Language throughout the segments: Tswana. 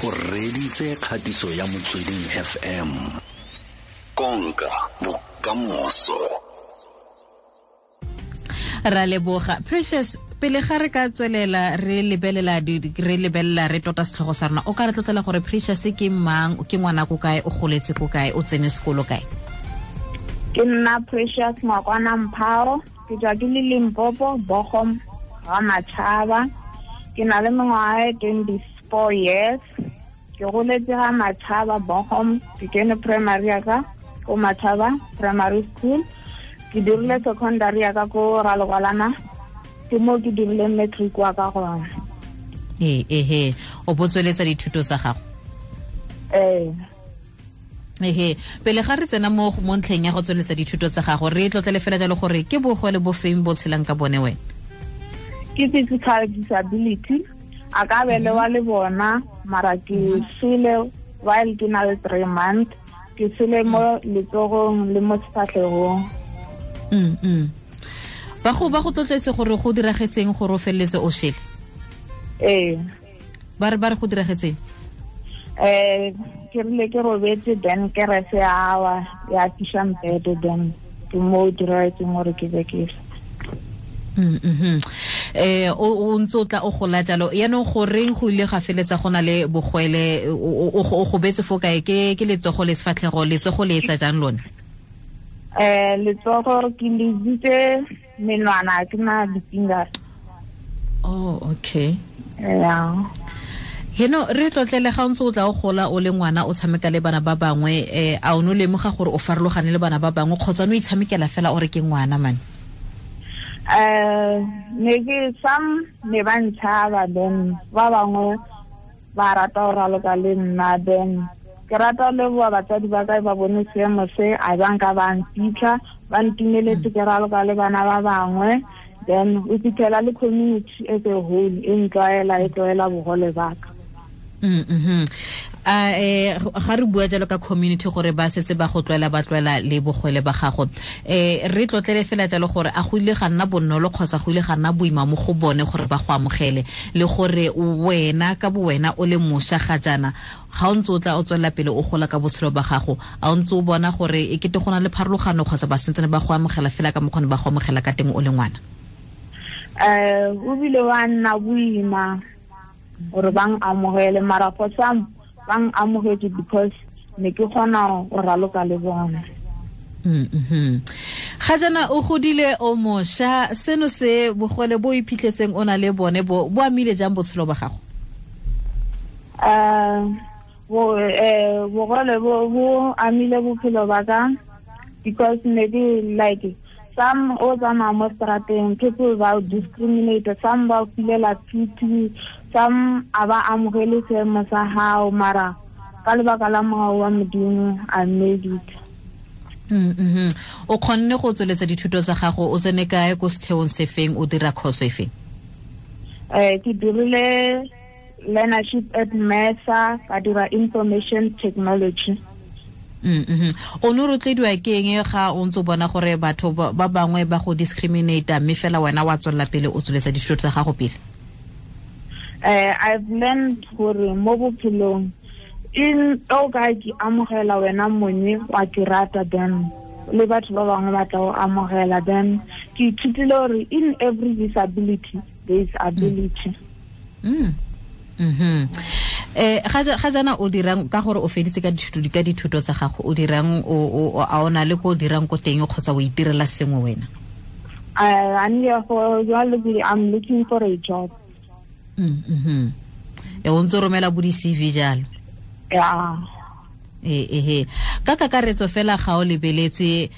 O reditse kgatiso ya Motsweding FM. Konka bokamoso. Ra leboga, Precious. Pele ga re ka tswelela re lebelela re lebelela re tota setlhogo sa rona, o ka re tlotlela gore Precious ke mang, ke ngwana ko kae, o goletse ko kae, o tsene sekolo kae? Ke nna Precious Ngwakwana Mphao, ke tswa ke le Limpopo, Bogom ga Matšhaba. Ke na le mengwaga e 24 years. Ke goletse ga Matšhaba, Bogom. Ke kene primary ya ka ko Matšhaba Primary School. Ke dirile secondary ya ka ko Ralogwalana, ke mo ke dirileng matric wa ka gona. Ee, ehe, o bo tsweletsa dithuto tsa gago? Ee. Ehe, pele ga re tsena mo ntlheng ya go tsweletsa dithuto tsa gago, re tlotlele fela jalo gore ke bogole bo feng bo tshelang ka bone wena? Ke physical disability, a ka belewa le bona, mara ke sele while ke na le 3 months, ke sele mo letsogong le mo sefatlhegong. Ba go tlotletse gore go diragetseng gore o feleletse o shele? Ee. Ba re go diragetseng? Ke rile ke robetse, then ke rese awa ya fisha mpete, then ke mo diragetseng gore ke be ke O ntse o tla o gola jalo, yaanong goreng go ile ga feletsa go na le bogwele? O gobetse fo kae? Ke letsogo le sefatlhego, letsogo le etsa jang lone? Letsogo ke lezitse menwana, ke na di-fingers. Oh, okay. Yeah. Heno re tlotlele ga o ntse o tla o gola o le ngwana o tshameka le bana ba bangwe, a o no lemoga gore o farologane le bana ba bangwe kgotsa o itshamekela fela o re ke ngwana man? Ne ke some ne ba ntshaba, then ba bangwe ba rata go raloka le nna, then ke rata le leboa batsadi ba ka ba bone seemo se, a ba nka ba nfitlha, ba ntumeletse ke raloka le bana ba bangwe, then o fitlhela le community as a whole e ntlwaela, e tlwaela bogole ba ka. Ga re bua jalo ka community gore ba setse ba go tlwaela, ba tlwaela le bogole ba gago, re tlotlele fela jalo gore a go ile ga nna bonolo kgotsa go ile ga nna boima mo go bone gore ba go amogele, le gore wena ka bo wena o le mošwa ga jaana, ga o ntse o tla o tswelela pele o gola ka botshelo ba gago, a o ntse o bona gore e kete go na le pharologano kgotsa ba sentsene ba go amogela fela ka mokgwa ba go amogela ka teng o le ngwana? O bile wa nna boima gore bang amogele, mara for some bang amogetse because ne ke kgona go raloka le bona. Ga jaana o godile o mošwa, seno se bogole bo iphitlhetseng o na le bone bo amile jang botshelo ba gago? Bogole bo amile bophelo ba ka because ne ke like some o tsamaya mo strateng, people ba discriminate, some ba filela pity, some a ba amogele seemo sa hao, mara ka lebaka la mogau wa Modimo I made it. O kgonne go tsweletsa dithuto tsa gago, o tsene kae, ko setheong sefeng, o dira course e feng? Ke dirile learnership at Mesa, ka dira information technology. O ne o rotloediwa ke eng ga o ntse o bona gore batho ba bangwe ba go discriminate, mme fela wena wa tswelela pele o tsweletsa dithuto tsa gago pele? I've learned gore mo bophelong in o ka ke amogela wena mongwe wa ke rata, then le batho ba bangwe ba tla o amogela, then ke ithutile gore in every disability there is ability. Ga jaana o dirang ka gore o feditse ka dithuto tsa gago, o dirang, a o na le ko o dirang ko teng kgotsa o itirela sengwe wena? I'm looking for a job. O ntse o romela bo di-CV jalo? Yeah. Ka kakaretso fela ga o lebeletse,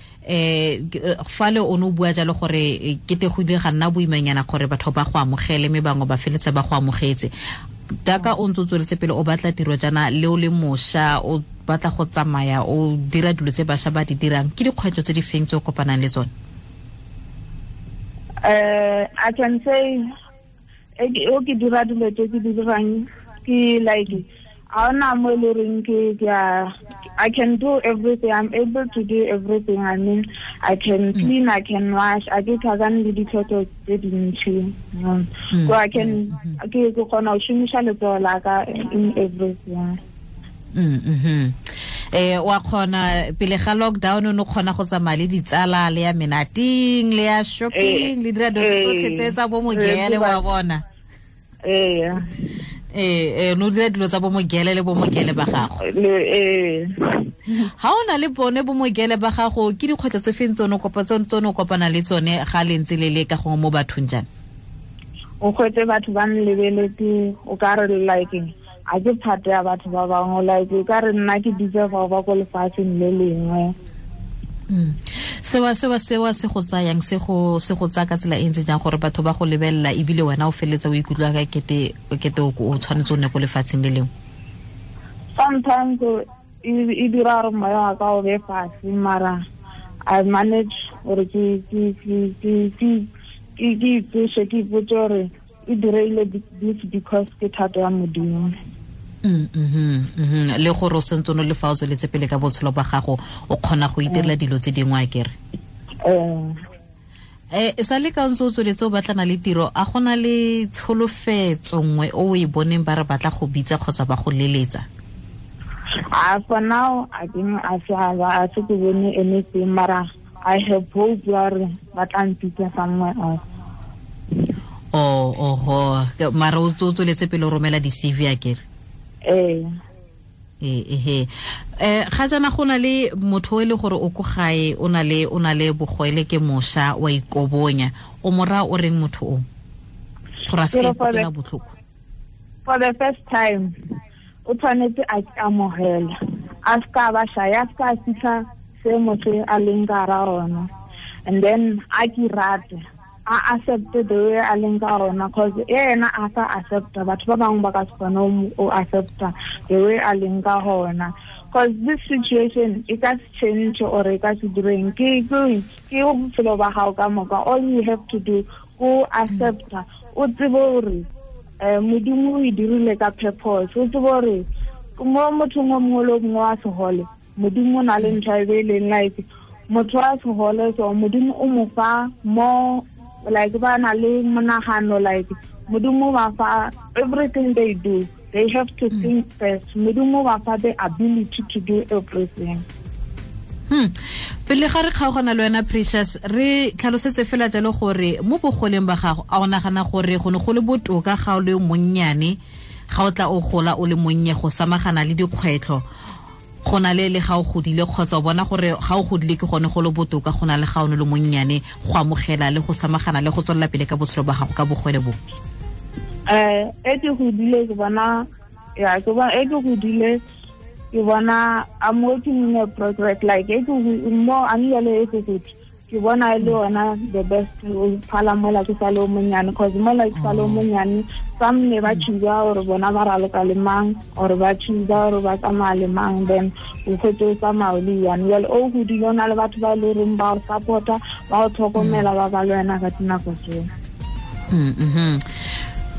fale o ne o bua jalo gore kete go ile ga nna boimanyana gore batho ba go amogele, mme bangwe ba feletsa ba go amogetse. Jaaka o ntse o tsweletse pele o batla tiro jaana, le o le mošwa o batla go tsamaya o dira dilo tse bašwa ba di dirang, ke dikgwetlho tse di feng tse o kopanang le tsone? I can say o ke dira dilo tse ke di dirang ke like a ona mo le reng ke I can do everything. I'm able to do everything. I mean, I can clean, I can wash, I ke tlhakane le ditlhoko tse dintsi. So I can ke kgona go šomiša letsogo la ka in everything. Wa kgona pele ga lockdown o ne kgona go tsamaya le ditsala le ya menating le ya shopping le dira dilo tsotlhe tse tsa bo mogele wa bona. No dira dilo tsa bo mogele le bo mogele ba gago. Ha o na le bone bo mogele ba gago ke dikgwetlho tse feng tsone o kopana le tsone ga le ntse le le ka gongwe mo bathong jana? O kgwetse batho ba nlebeletse o ka re like a ke part ya batho ba bangwe, like o ka re nna ke deserve go ba ko lefatsheng le lengwe. Sewa se go tsayang se go tsaya ka tsela e ntse jang gore batho ba go lebelela ebile wena o feletsa o ikutlwa ka kete o tshwanetse o nne ko lefatsheng le lengwe? Sometimes e dira gore moya wa ka o be fatshe, mara I manage gore ke itsese ke ipotse gore e direile this because ke thato ya Modimo. Le gore o sentse o le fa o tsweletse pele ka botshelo ba gago o kgona go itirela dilo tse dingwe a kere? Sa le ka ntse o tsweletse o batlana le tiro, a gona le tsholofetso nngwe o e boneng ba re batla go bitsa kgotsa ba go leletsa? For now I think I se ke bone anything, mara I have hope gore ba tla mpitsa somewhere else. Oh, mara o tsweletse pele o romela di-CV a kere? Ga jana go na le motho e le gore o ko gae o na le bogwele ke mosha wa ikobonya, o mora o reng motho o gore a se ka ikutlwela botlhoko? For the first time o tshwanetse a amogela, a se ka ba shaya, a se ka fitlha se motho a leng ka ra ona, and then a ke rate, a accept the way a leng ka ona, cause ena a sa accepta batho ba bangwe ba ka se kgone o accepta the way a leng ka gona, cause this situation e ka se change or e ka se direng, ke bophelo ba gago ka moka. All you have to do go accepta, o tsebe gore Modimo o e dirile ka purpose, o tsebe gore mo mothong o mongwe le o mongwe wa segole Modimo o na le ntho e be leng, like motho wa segole so Modimo o mo fa more, like ba na le monagano, like Modimo ba fa everything they do, they have to think first. Modimo ba fa the ability to do everything. Pele ga re kgaogana le wena Precious, re tlhalosetse fela jalo gore mo bogoleng ba gago a o nagana gore go ne go le botoka ga o le monnyane, ga o tla o gola o le monnye go samagana le dikgwetlho go na le ga o godile, kgotsa o bona gore ga o godile ke gone go le botoka go na le ga o ne le monnyane go amogela le go samagana le go tswelela pele ka botshelo ba gago ka bogwele bo? E ke godile ke bona, ya ke bona e ke godile ke bona I'm working in a progress, like e ke mo a le e ke ke bona e le yona the best o phala mola ke sa le o monnyane, cause mola ke sa le o monnyane some ne ba choose gore bona ba raloka le mang or ba choose gore ba tsamaya le mang, then o fetse o tsamaya o le one. Well, o godile o na le batho ba e le goreng ba o support-a, ba o tlhokomela, ba ba le wena ka dinako tseo.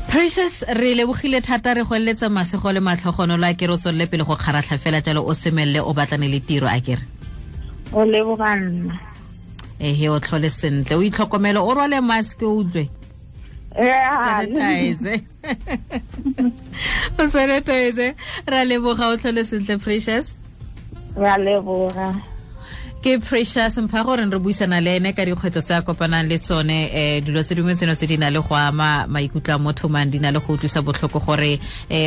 Precious, re lebogile thata, re go eletsa masego le matlhogonolo a kere o tswelele pele go kgaratlha fela jalo, o semelle o batlane le tiro a kere. O leboga nna. Ehe, o tlhole sentle, o itlhokomele, o rwale mask o utlwe. Sanitize. O sanitize. Ra leboga, o tlhole sentle Precious. Ra leboga. Ke Precious Mpha gore re buisana le ene ka dikgwetlho tse a kopanang le tsone, dilo tse dingwe tseno tse di na le go ama maikutlo a motho mang, di na le go utlwisa botlhoko gore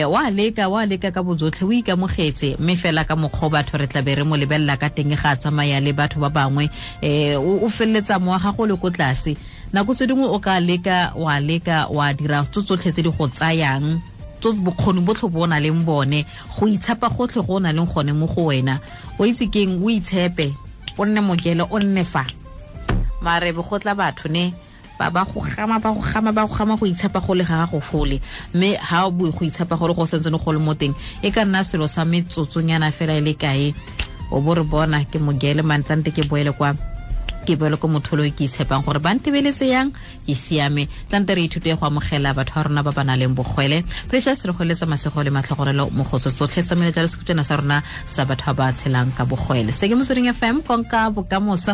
wa leka ka bojotlhe o ikamogetse, mme fela ka mokgwa batho re tla be re mo lebelela ka teng ga a tsamaya le batho ba bangwe, o feleletsa mowa gago le ko tlase. Nako tse dingwe o ka leka wa leka wa dira tsotlhe tse di go tsayang, bokgoni botlhe bo o na leng bone, go itshepa gotlhe go o na leng gone mo go wena, o itse keng, o itshepe, o nne mokele, o nne fa mare bo go tla batho ne ba go gama ba go gama ba go gama go itshepa go le ga go fole, mme ha o bue go itshepa gore go sentse go le mo teng e ka nna selo sa metsotsonyana fela e le kae, o bo re bona ke mogele mantlante ke boele kwa Ke boele ko motho lo ke itshepang gore ba ntebeletse yang, ke siame. Tlante re ithute go amogela batho ba rona ba ba nang le bogwele. Precious, re goeletsa masego le matlhogorelo mo go tsotlhe tsa meletla le sekhutlwana sa rona sa batho ba ba tshelang ka bogwele. Se ke Motsweding FM, konka bokamoso.